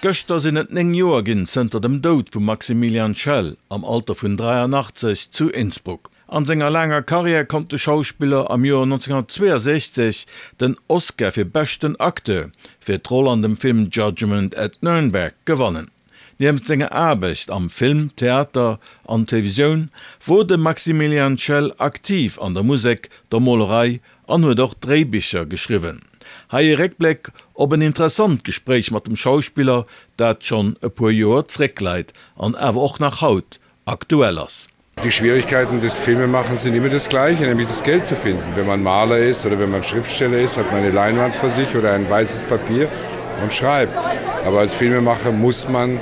Gëschter sinn et 9 Joer ginn zënter dem Doud vum Maximilian Schell am Alter vun 83 zu Innsbruck. An senger laanger Karriär konnt de Schauspiller am Joer 1962 den Oscar fir beschten Acteur fir d'Roll an dem Film Judgment at Nürnberg gewannen. Nieft senger Aarbecht am Film, Theater an Televisioun wor de Maximilian Schell aktiv an der Musek, der Molerei an huet och Dréibicher geschriwwen. Hei e Réckbléck op en interessant Gespréich mat dem Schauspiller, dat schonn e puer Joer zréckleit an awer och nach haut aktuell ass. Die Schwierigkeiten des Filmemachens sind immer das gleiche, nämlich das Geld zu finden. Wenn man Maler ist oder wenn man Schriftsteller ist, hat man eine Leinwand vor sich oder ein weißes Papier und schreibt. Aber als Filmemacher muss man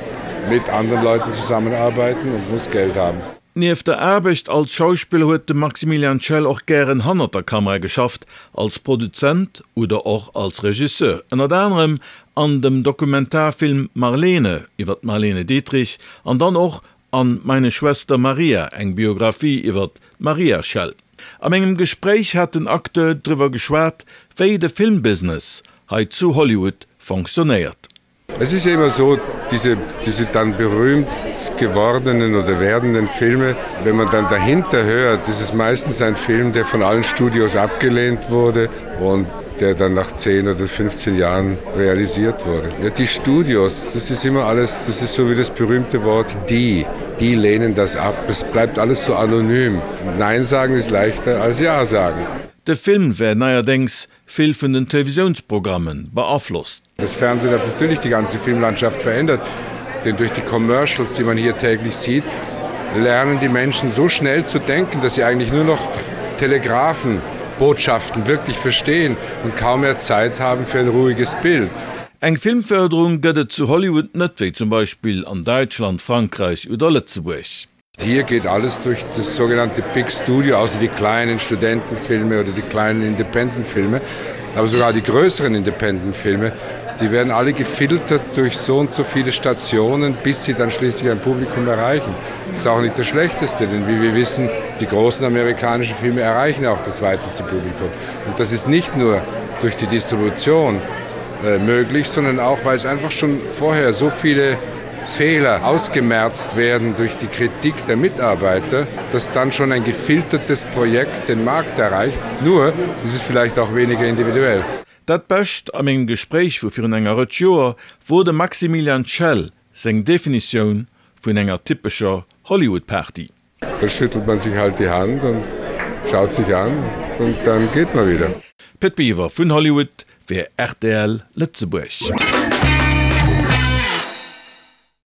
mit anderen Leuten zusammenarbeiten und muss Geld haben. Nieft der Aarbecht als Schauspiller huet de Maximilian Schell och gären hannert der Kamera geschafft, als Produzent oder och als Regisseur, ënnert anerem an dem Dokumentarfilm Marlene iwwer d'Marlene Dietrich an dann och An Meine Schwester Maria, eng Biographie iwwer d'Maria Schell. A mengem Gespréich hat den Acteur driwwer geschwat, wéi de Filmbusiness hei zu Hollywood fonctionnéiert. Es ist ja immer so, diese, diese dann berühmt gewordenen oder werdenden Filme, wenn man dann dahinter hört, ist es meistens ein Film, der von allen Studios abgelehnt wurde und der dann nach 10 oder 15 Jahren realisiert wurde. Ja, die Studios, das ist immer alles, das ist so wie das berühmte Wort die. Die lehnen das ab. Es bleibt alles so anonym. Nein sagen ist leichter als Ja sagen. De Film wär neierdéngs vill vun den Televisiounsprogrammen beaflosst. Das Fernsehen hat natürlich die ganze Filmlandschaft verändert, denn durch die Commercials, die man hier täglich sieht, lernen die Menschen so schnell zu denken, dass sie eigentlich nur noch Telegrafenbotschaften wirklich verstehen und kaum mehr Zeit haben für ein ruhiges Bild. Eng Filmförderung gëtt et zu Hollywood net, wéi zum Beispill an Däitschland, Frankräich oder Lëtzebuerg. Hier geht alles durch das sogenannte Big Studio, außer die kleinen Studentenfilme oder die kleinen Independentfilme, aber sogar die größeren Independentfilme, die werden alle gefiltert durch so und so viele Stationen, bis sie dann schließlich ein Publikum erreichen. Das ist auch nicht das Schlechteste, denn wie wir wissen, die großen amerikanischen Filme erreichen auch das weiteste Publikum. Und das ist nicht nur durch die Distribution äh, möglich, sondern auch, weil es einfach schon vorher so viele Fehler ausgemerzt werden durch die Kritik der Mitarbeiter, dass dann schon ein gefiltertes Projekt den Markt erreicht. Nur ist es vielleicht auch weniger individuell. Dat Bescht a mengem Gespréich vu virun enger Rëtsch Joer wor dem Maximilian Schell seng Definitioun vun enger typescher Hollywood-Party. Da schüttelt man sich halt die Hand und schaut sich an und dann geht man wieder. Pit Biwer vun Hollywood fir rtl Lëtzebuerg.